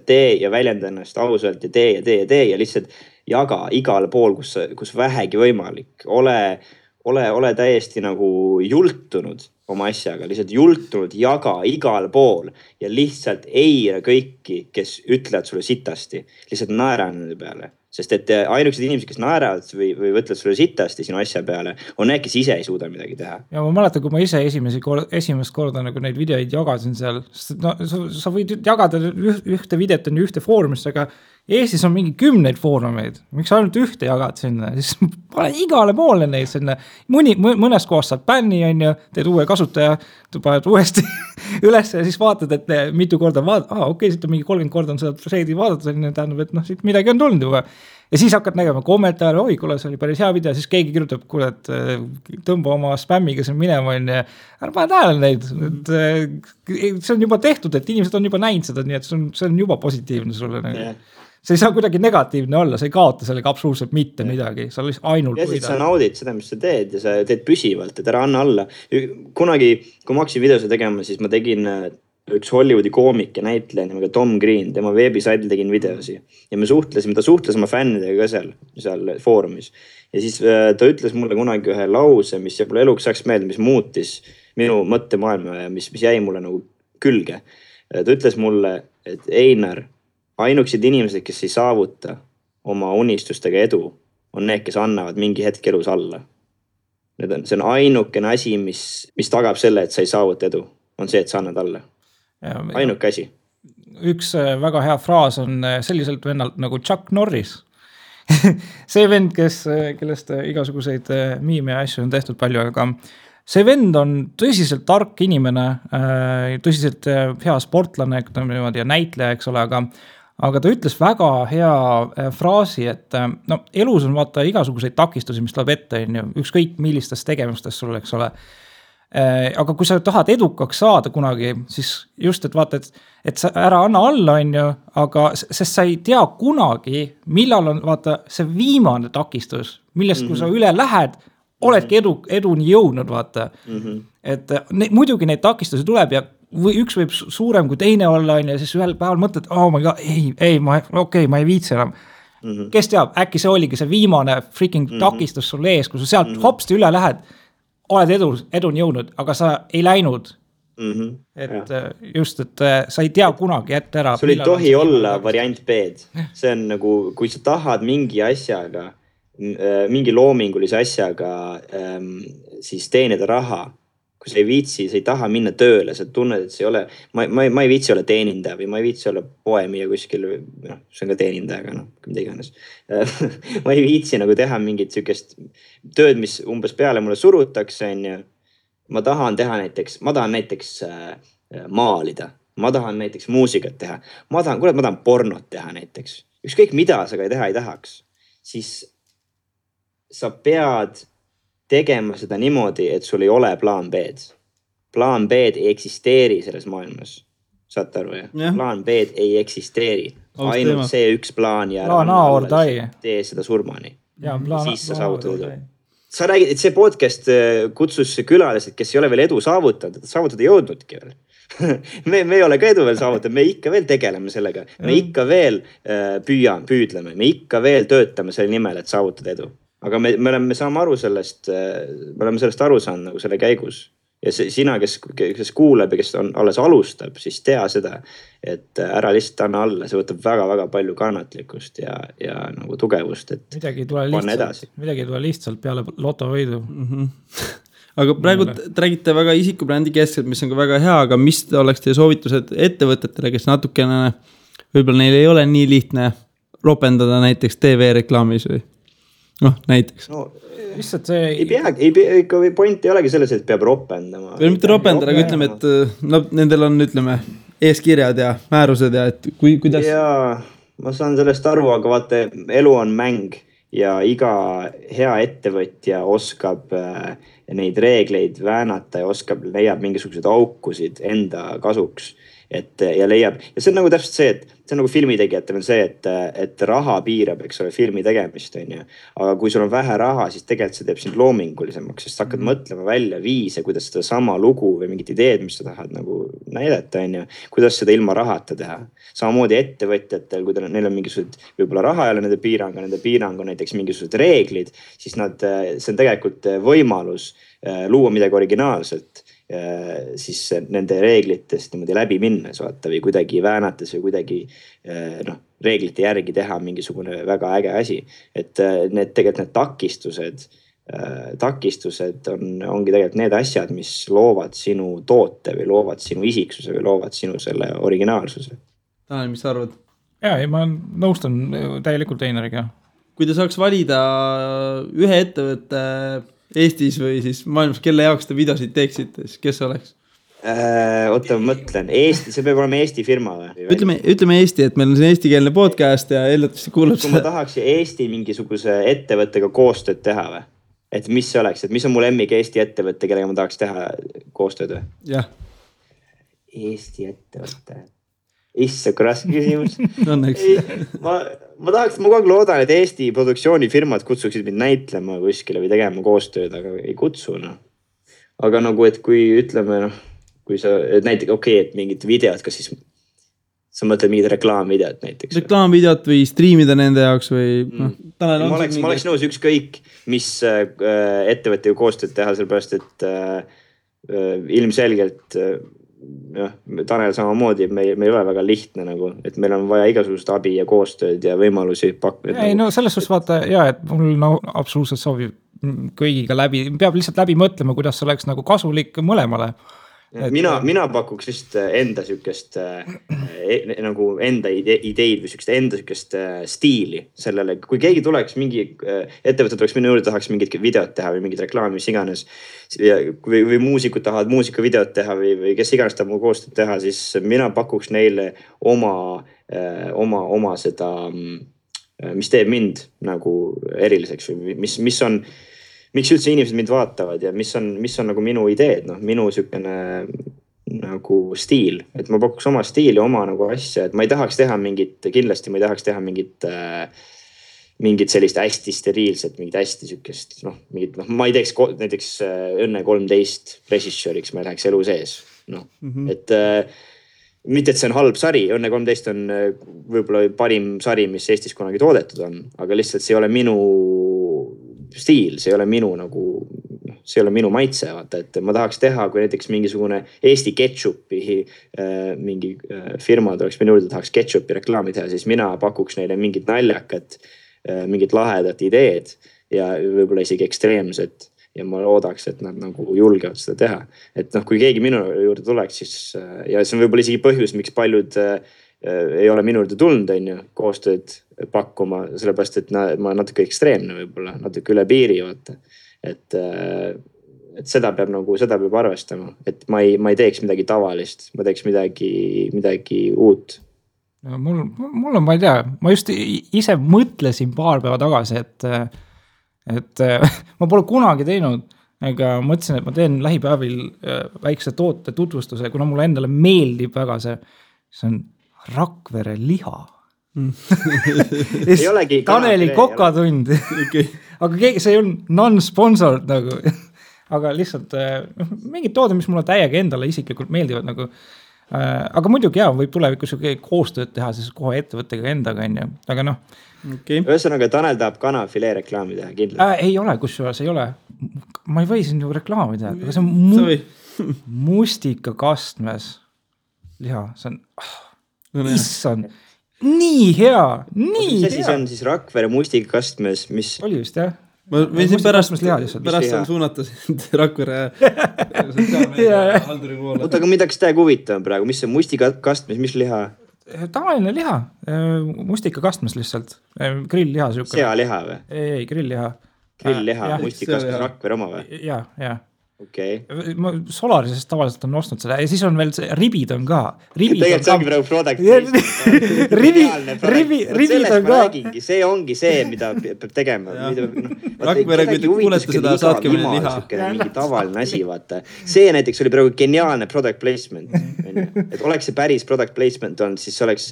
tee ja väljenda ennast ausalt ja tee ja lihtsalt jaga igale pool, kus vähegi võimalik. Ole täiesti nagu jultunud oma asjaga, lihtsalt jultunud, jaga igal pool ja lihtsalt eira kõiki, kes ütlevad sulle sitasti, lihtsalt naera nende peale. Sest et ainukesed inimesed, kes naeravad või võtlevad sulle sitasti sinu asja peale, on need, kes ise ei suuda midagi teha. Ja ma mäletan, kui ma ise esimest korda nagu neid videoid jagasin seal, sest no, sa võid jagada ühte videot on ühte foorumisse, aga Eestis on mingi 10 foorumeid, miks ainult ühte jagad sinna, siis pane igale poole neid sinna, mõnes kohas saad bänni, on ju, teed uue kasutaja, paned uuesti üles ja siis vaatad, et mitu korda okei, siit on mingi 30 korda on seda threadi vaadata, tähendab, et noh, siit midagi on tulnud juba. Ja siis hakkad nägema kommentaare, oi, kuule, see oli päris hea video, siis keegi kirjutab, kuule, et tõmba oma spämmiga siin minema, on ja ära pane tähele neid, et see on juba tehtud, et inimesed on juba näinud seda, nii et see on juba positiivne sulle. See ei saa kuidagi negatiivne olla, sa ei kaota sellega absoluutselt mitte midagi, sa lihtsalt ainult ja siis sa naudid seda, mis sa teed ja sa teed püsivalt, et ära anna alla. Kunagi, kui ma hakkasin videose tegema, siis ma tegin üks Hollywoodi koomik ja näitleja nimega Tom Green, tema veebisaidil tegin videosi ja ta suhtles oma fännidega ka seal foorumis. Ja siis ta ütles mulle kunagi ühe lause, mis jääb eluks saaks meelde, mis muutis minu mõttemaailma ja mis jäi mulle nagu külge. Ta ütles mulle, et Einar, ainukesed inimesed, kes ei saavuta oma unistustega edu, on need, kes annavad mingi hetk elus alla. See on ainukene asi, mis tagab selle, et sa ei saavuta edu, on see, et sa annad alla. Ainuke asi. Üks väga hea fraas on selliselt vennalt nagu Chuck Norris. See vend, kellest igasuguseid miime ja asju on tehtud palju, aga see vend on tõsiselt tark inimene, tõsiselt hea sportlane ja näitleja, eks ole, aga ta ütles väga hea fraasi, et no, elus on vaata igasuguseid takistusi, mis tuleb ette, ükskõik millistest tegemistest sul, eks ole. Aga kui sa tahad edukaks saada kunagi, siis just, et vaata, et sa ära anna alla, on ju, aga sest sa ei tea kunagi, millal on vaata see viimane takistus, millest kui sa üle lähed, oledki eduni jõudnud, vaata. Et muidugi neid takistusi tuleb ja või üks võib suurem kui teine olla, ja siis ühel päeval mõtled, ma ei viitsi enam. Kes teab, äkki see oligi see viimane freaking takistus sul ees, kui sa sealt hopsti üle lähed, oled eduni jõudnud, aga sa ei läinud. Et just, et sa ei tea kunagi ette ära. Sul ei tohi olla variant B-d. See on nagu, kui sa tahad mingi asjaga, mingi loomingulise asjaga siis teenida raha, kui sa ei viitsi, sa ei taha minna tööle, sa tunned, et see ei ole, ma ei viitsi olla teenindaja või ma ei viitsi olla poemia kuskil, see on ka teenindaja, aga mida iganes. Ma ei viitsi nagu teha mingit sükest tööd, mis umbes peale mulle surutakse, ma tahan näiteks maalida, ma tahan näiteks muusikat teha, ma tahan pornot teha näiteks, ükskõik mida sa ka teha ei tahaks, siis sa pead tegema seda niimoodi, et sul ei ole plaan B-d. Plaan B-d ei eksisteeri selles maailmas. Saate aru, jah? Plaan B-d ei eksisteeri. Ainult see üks plaan ja tee seda surmani. Siis sa saavutad edu. Sa räägid, et see podcast kutsus külalised, kes ei ole veel edu saavutanud, et saavutada jõudnudki veel. me ei ole ka edu veel saavutanud, me ikka veel tegeleme sellega, me ikka veel püüdleme, me ikka veel töötame selle nimel, et saavutada edu. Aga me saame aru sellest, me oleme sellest aru saanud nagu selle käigus. Ja sina, kes kuuleb ja kes alles alustab, siis tea seda, et ära lihtsalt anna alla, see võtab väga-väga palju kannatlikkust ja nagu tugevust, et midagi ei tule lihtsalt peale lotovõidu. Aga praegu te räägite väga isikubrändi keskselt, mis on ka väga hea, aga mis oleks teie soovitused ettevõtetele, kes natukene, võib-olla neil ei ole nii lihtne ropendada näiteks TV-reklaamis või näiteks. No, lihtsalt see ikka point ei olegi selles, et peab ropendama. Või mitte ropendada, aga ütleme, et nendel on, ütleme, eeskirjad ja määrused ja et kuidas... Jaa, ma saan sellest aru, aga vaata, elu on mäng ja iga hea ettevõtja oskab neid reegleid väänata ja leiab mingisuguseid aukusid enda kasuks. Ja leiab, ja see on nagu täpselt see, et see on nagu filmitegijatel on see, et raha piirab, eks ole, filmi tegemist, on ju. Aga kui sul on vähe raha, siis tegelikult see teeb sind loomingulisemaks, sest hakkad mõtlema välja viise, kuidas seda sama lugu või mingit ideed, mis sa tahad nagu näidata, on ju, kuidas seda ilma rahata teha. Samamoodi ettevõtjatel, kui neil on mingisugused, võib-olla raha ei ole nende piirang on näiteks mingisugused reeglid, siis see on tegelikult võimalus luua midagi originaalselt. Siis nende reeglitest niimoodi läbi minnes vaata või kuidagi väänates või kuidagi reeglite järgi teha mingisugune väga äge asi. Et need takistused ongi tegelikult need asjad, mis loovad sinu toote või loovad sinu isiksuse või loovad sinu selle originaalsuse. Tanel, mis sa arvad? Ma nõustun täielikult Einariga. Kui te saaks valida ühe ettevõtte Eestis või siis maailmas, kelle jaoks te videosid teeksite, siis kes oleks? Oota, ma mõtlen. Eesti, see peab olema Eesti firma või? Ütleme Eesti, et meil on see eestikeelne podcast ja eeldatavasti kuulab kui ma tahaks Eesti mingisuguse ettevõttega koostööd teha või? Et mis see oleks? Et mis on mu lemmik Eesti ettevõtte, kellega ma tahaks teha koostööd või? Jah. Eesti ettevõtte. Issa, kui raske küsimus. Ma kogu aeg loodan, et Eesti produktsioonifirmad kutsuksid mind näitlema kuskile või tegema koostööd, aga ei kutsu. Aga nagu, et kui ütleme, kui sa näiteks, et mingid videod, kas siis sa mõtled mingid reklaamvideod näiteks? Reklaamvideod või striimida nende jaoks või... Ma oleks nõus ükskõik, mis ettevõtte koostööd teha, sellepärast, et ilmselgelt... Tanel samamoodi, meil ei ole väga lihtne nagu, et meil on vaja igasugust abi ja koostööd ja võimalusi pakkuda. Ei, selles suhtes vaata, et mul absoluutselt soovib kõigiga peab lihtsalt läbi mõtlema, kuidas see oleks nagu kasulik mõlemale. Mina pakuks vist enda sükest nagu enda ideid või sükest enda sükest stiili sellele. Kui keegi tuleks, mingi ettevõte tuleks minu juurde, tahaks mingit videot teha või mingit reklaami, mis iganes. Või muusikud tahavad muusikavideot teha või kes iganes tahab mu koostööd teha, siis mina pakuks neile oma seda, mis teeb mind nagu eriliseks või miks üldse inimesed mind vaatavad ja mis on nagu minu ideed, minu sükene nagu stiil, et ma pakuks oma stiili, oma nagu asja, et ma ei tahaks teha kindlasti ma ei tahaks teha mingit sellist hästi steriilset, mingit hästi sükest, ma ei teeks näiteks Õnne 13 režissööriks, ma ei läheks elu sees, et mitte, et see on halb sari, Õnne 13 on võib-olla parim sari, mis Eestis kunagi toodetud on, aga lihtsalt see ei ole minu stiil, see ei ole minu maitse, vaata, et ma tahaks teha, kui näiteks mingisugune Eesti ketšupi mingi firma tuleks minu juurde, tahaks ketšupi reklaami teha, siis mina pakuks neile mingit naljakat, mingit lahedat ideed ja võib-olla isegi ekstreemset ja ma loodaks, et nad nagu julgevad seda teha. Et kui keegi minu juurde tuleks, siis ja see on võib-olla isegi põhjus, miks paljud ei ole minu juurde tulnud, koostööd pakkuma, sellepärast, et ma natuke ekstreemne võib-olla, natuke üle piiri, vaata. Et seda peab arvestama, et ma ei teeks midagi tavalist, ma teeks midagi uut. Mul on, ma ei tea, ma just ise mõtlesin paar päeva tagasi, et ma pole kunagi teinud, aga mõtlesin, et ma teen lähipäevil väikse toote tutvustuse, kuna mulle endale meeldib väga see on Rakvere liha. Ei olegi Taneli kokatund. Okay. Aga see on non-sponsored nagu. aga lihtsalt mingid tooded, mis mulle täiega endale isiklikult meeldivad nagu. Aga muidugi võib tulevikus koostööd teha siis kohe ettevõttega endaga, on ju. Aga okay. Ühesõnaga, Tanel tahab kanafilee reklaami teha, kindlasti. Ei ole, kusjuures ei ole. Ma ei või siin ju reklaami teha, aga see on mustikakastmes liha. See on, issand, nii hea, nii hea. See on siis Rakvere mustikakastmes, mis... Oli vist, jah? Ma võisin pärast suunata sind Rakvere halduri poole. Oota, aga midagi täiega huvitav praegu, mis see mustikakastmes, mis liha? Tavaline liha, mustikakastmes lihtsalt, grill-liha. Sealiha või? Ei, grill-liha. Grill-liha, mustikakastmes Rakvere oma või? Jah. Okay. Ma Solarisest tavaliselt on ostnud seda ja siis on veel ribid on ka. Tegelikult see ongi praegu product. Ribid on ka. See ongi see, mida peab tegema. Rakvere, kui te kuulete seda, saatke meile liha. Mingi tavaline asi, vaata. See näiteks oli praegu geniaalne product placement. Et oleks see päris product placement on, siis oleks...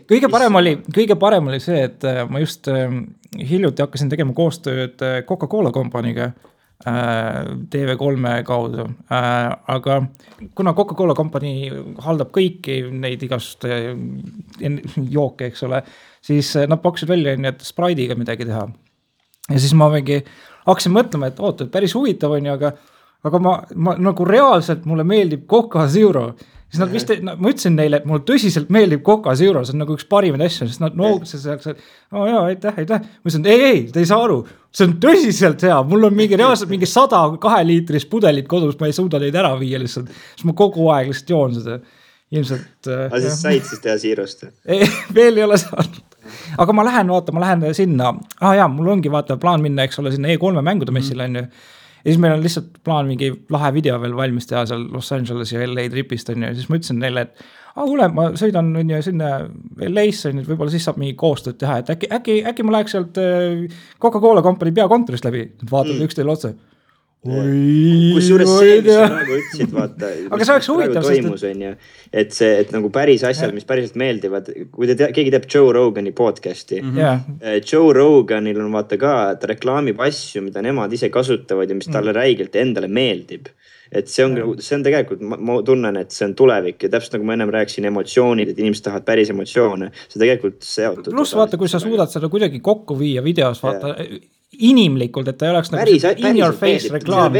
Kõige parem oli see, et ma just hiljuti hakkasin tegema koostööd Coca-Cola kompaniga. TV3 kaudu, aga kuna Coca-Cola kompanii haldab kõiki neid igast jooke, eks ole, siis nad pakkusid välja, et Sprite'iga midagi teha. Ja siis ma hakkasin mõtlema, et oota, päris huvitav on ju, aga ma nagu reaalselt mulle meeldib Coca Zero. Siis nad vist, ma ütlesin neile, et mulle tõsiselt meeldib Coca Zero, see on nagu üks parimaid asju, sest nad noogutasid seal, aitäh. Ma ütlesin, ei, te ei saa aru, see on tõsiselt hea, mul on reaalselt mingi 102 liitris pudelit kodus, ma ei suuda neid ära viia lihtsalt, siis ma kogu aeg lihtsalt joon seda. Ilmselt... Aga siis said siis teha Zerost? Veel ei ole saanud. Aga ma lähen sinna, mul ongi plaan minna, eks ole, sinna E3 mängude messile on ju. Ja siis meil on lihtsalt plaan mingi lahe video veel valmis teha seal Los Angeles ja LA tripist on ju. Siis ma ütlesin neile, et kuule, ma sõidan sinna LA-sse, võib-olla siis saab mingi koostööd teha, et äkki ma läheks sealt Coca-Cola kompanii peakontorist läbi. Vaatavad üksteile otse. Kusjuures see, mis sa praegu ütlesid, vaata, aga see oleks huvitav, toimus, on ju, et nagu päris asjad, mis päriselt meeldivad, kui keegi teeb Joe Rogani podcasti, Joe Roganil on vaata ka, ta reklaamib asju, mida nemad ise kasutavad ja mis talle räigelt endale meeldib. Et see on tegelikult, ma tunnen, et see on tulevik ja täpselt nagu ma ennem rääkisin emotsioonid, et inimesed tahavad päris emotsioone, see tegelikult seotud. Plus vaata, kui sa suudad seda kuidagi kokku viia videos, vaata inimlikult, et ta ei oleks nagu in your face reklaam.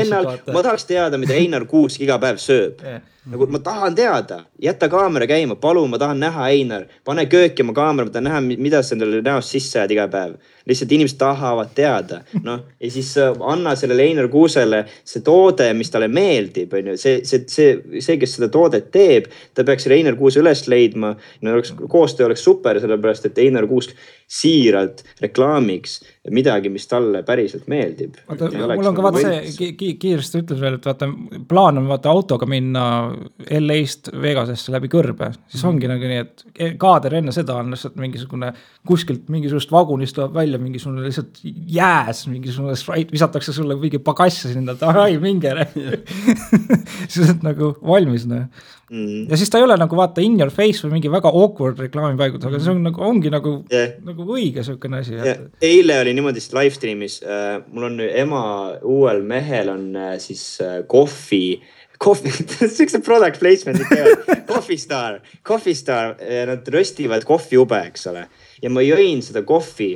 Ma tahaks teada, mida Einar Kuusk iga päev sööb. Nagu ma tahan teada, jätta kaamera käima, palun, ma tahan näha Einar, pane kööki oma kaamera, ma tahan näha, mida sa endale näost sisse ajad iga päev. Lihtsalt inimesed tahavad teada. Ja siis anna sellele Einar Kuusele see toode, mis talle meeldib. See, kes seda toodet teeb, ta peaks selle Einar Kuuse üles leidma. Koostöö oleks super, sellepärast, et Einar Kuusk siiralt reklaamiks midagi, mis talle päriselt meeldib. Mul on ka vaata see, kiiresti ütles veel, et vaata, plaan on vaata autoga minna LA-st Vegasesse läbi kõrbe. Siis ongi nagu nii, et kaader enne seda on lihtsalt mingisugune kuskilt mingisugust vagunist tuleb välja mingisugune lihtsalt jääs, mingisugune sprite, visatakse sulle mingi pagassi sinna, et minge. Siis on nagu valmis. Ja siis ta ei ole nagu vaata in your face või mingi väga awkward reklaamipaigut, aga see on nagu, ongi nagu õige selline asi. Eile oli niimoodi live streamis, mul on ema uuel mehel on siis kohvi, see product placement, Coffee Star, nad röstivad kohvi ube, eks ole. Ja ma jõin seda kohvi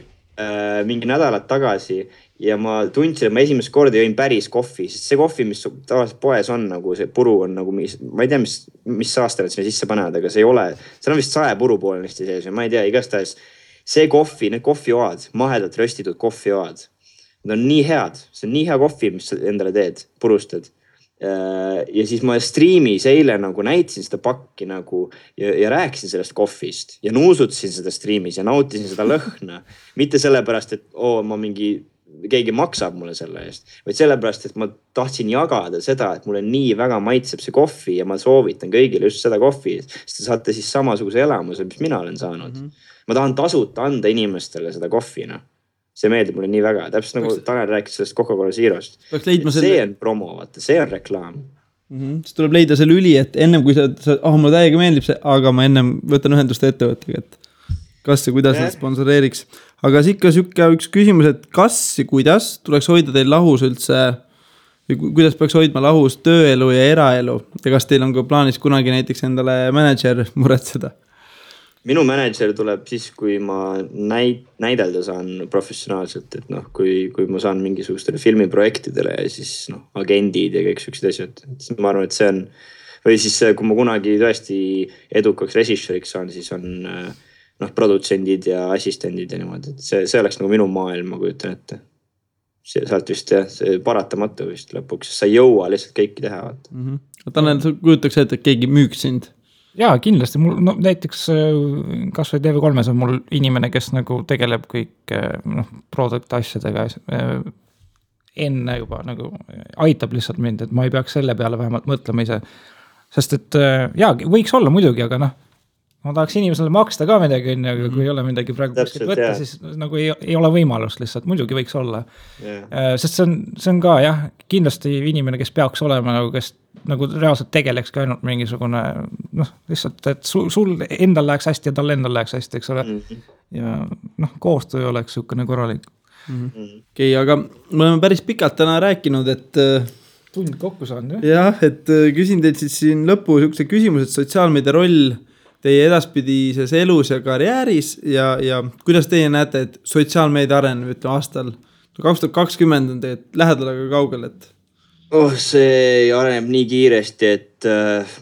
mingi nädalat tagasi ja ma tundsin, et ma esimest korda jõin päris kohvi, sest see kohvi, mis tavaliselt poes on, nagu see puru on nagu, ma ei tea, mis saaste nad sinna sisse panevad, aga see ei ole, seal on vist 100 puru poolenisti sees, ma ei tea, igastahes see kohvi, need kohvioad, mahedalt röstitud kohvioad, need on nii head, see on nii hea kohvi, mis sa endale teed, purustad. Ja siis ma streamis eile nagu näitasin seda pakki nagu ja rääkisin sellest kohvist ja nuusutasin seda streamis ja nautisin seda lõhna. Mitte sellepärast, et ma keegi maksab mulle selle eest, vaid sellepärast, et ma tahtsin jagada seda, et mulle nii väga maitseb see kohvi ja ma soovitan kõigile just seda kohvi, sest te saate siis samasuguse elamuse, mis mina olen saanud. Ma tahan tasuta anda inimestele seda kohvina. See meeldib mulle nii väga. Täpselt nagu Tanel rääkis sellest Coca-Cola Zerost. See on promo, vaata, see on reklaam. Siis tuleb leida see lüli, et ennem kui mulle täiega meeldib see, aga ma ennem võtan ühendust ettevõttega, et kas ja kuidas nad sponsoreeriks. Aga ikka üks küsimus, et kas ja kuidas tuleks hoida teil lahus üldse kuidas peaks hoidma lahus tööelu ja eraelu ja kas teil on ka plaanis kunagi näiteks endale manager muretseda? Minu manager tuleb siis, kui ma näidelda saan professionaalselt, et noh, kui ma saan mingisugustele filmiprojektidele ja siis agendid ja kõik sellised asjad. Ma arvan, et see on, või siis kui ma kunagi tõesti edukaks režissööriks saan, siis on produtsendid ja assistendid ja niimoodi, et see oleks nagu minu maailm, ma kujutan ette. Sealt vist see paratamatu vist lõpuks, sa ei jõua lihtsalt kõiki teha. Tanel, sa kujutaks ette, et keegi müüks sind? Jaa, kindlasti. Mul, näiteks kas või TV3 on mul inimene, kes nagu tegeleb kõik product asjadega enne juba nagu aitab lihtsalt mind, et ma ei peaks selle peale vähemalt mõtlema ise. Sest et jaa, võiks olla muidugi, aga ma tahaks inimesele maksta ka midagi, aga kui ei ole midagi praegu kuskilt võtta, siis nagu ei ole võimalust lihtsalt, muidugi võiks olla. Sest see on ka jah, kindlasti inimene, kes peaks olema, kes nagu reaalselt tegeleks ka ainult mingisugune, lihtsalt, et sul endal läheks hästi ja tal endal läheks hästi, eks ole. Ja koostöö oleks sukene korralik. Okei, aga me oleme päris pikalt täna rääkinud, et tund kokku saan, jah, et küsin teilt siis siin lõppu sukse küsimus, et sotsiaalmeedia roll teie edaspidises elus ja karjääris ja kuidas teie näete, et sotsiaalmeedia areneb, ütleme aastal 2020 on tegelikult lähedal aga kaugel, et see areneb nii kiiresti, et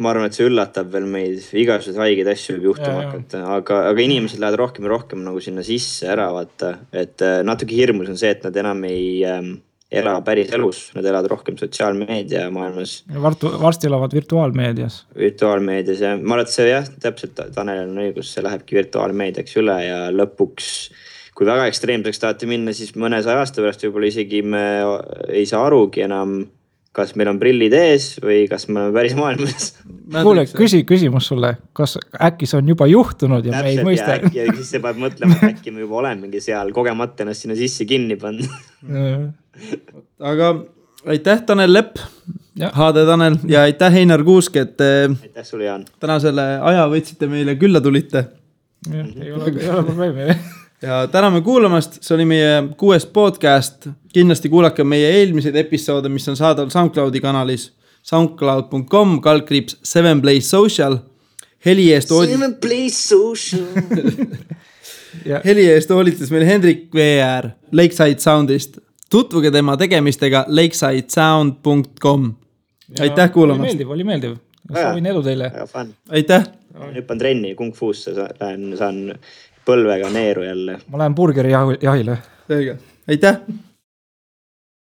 ma arvan, et see üllatab veel meid, igasugused haigeid asju võib juhtuma hakata, aga inimesed lähevad rohkem ja rohkem nagu sinna sisse ära vaata, et natuke hirmus on see, et nad enam ei ela päris elus, nad elavad rohkem sotsiaalmeedia maailmas. Varsti elavad virtuaalmeedias. Virtuaalmeedias ja ma arvan, et see jah, täpselt Tanel on õigus, see lähebki virtuaalmeediaks üle ja lõpuks, kui väga ekstreemseks tahate minna, siis mõne 100 aasta pärast võib-olla isegi me ei saa arugi enam, kas meil on prillid ees või kas me oleme päris maailmas. Kuule, küsimus sulle, kas äkki see on juba juhtunud ja me ei mõista? Ja siis see peab mõtlema, et äkki me juba olemegi seal kogemata ennast sinna sisse kinni pannud. Aga aitäh Tanel Lepp, HD Tanel ja aitäh Heinar Kuusk, et aitäh sulle, Jaan. Täna selle aja võtsite meile külla tulite. Ei ole probleemi. Ja täname kuulamast, see oli meie 6. podcast. Kindlasti kuulake meie eelmiseid episoode, mis on saadaval SoundCloudi kanalis soundcloud.com/7playsocial. Heli eest hoolitas meil Hendrik VR Lakeside Soundist. Tutvuge tema tegemistega lakesidesound.com. Aitäh kuulamast. Oli meeldiv. Soovin edu teile. Aitäh. Hüppan trenni Kung Fuusse, saan põlvega neeru jälle. Ma lähen burgeri jahile. Selge. Aitäh.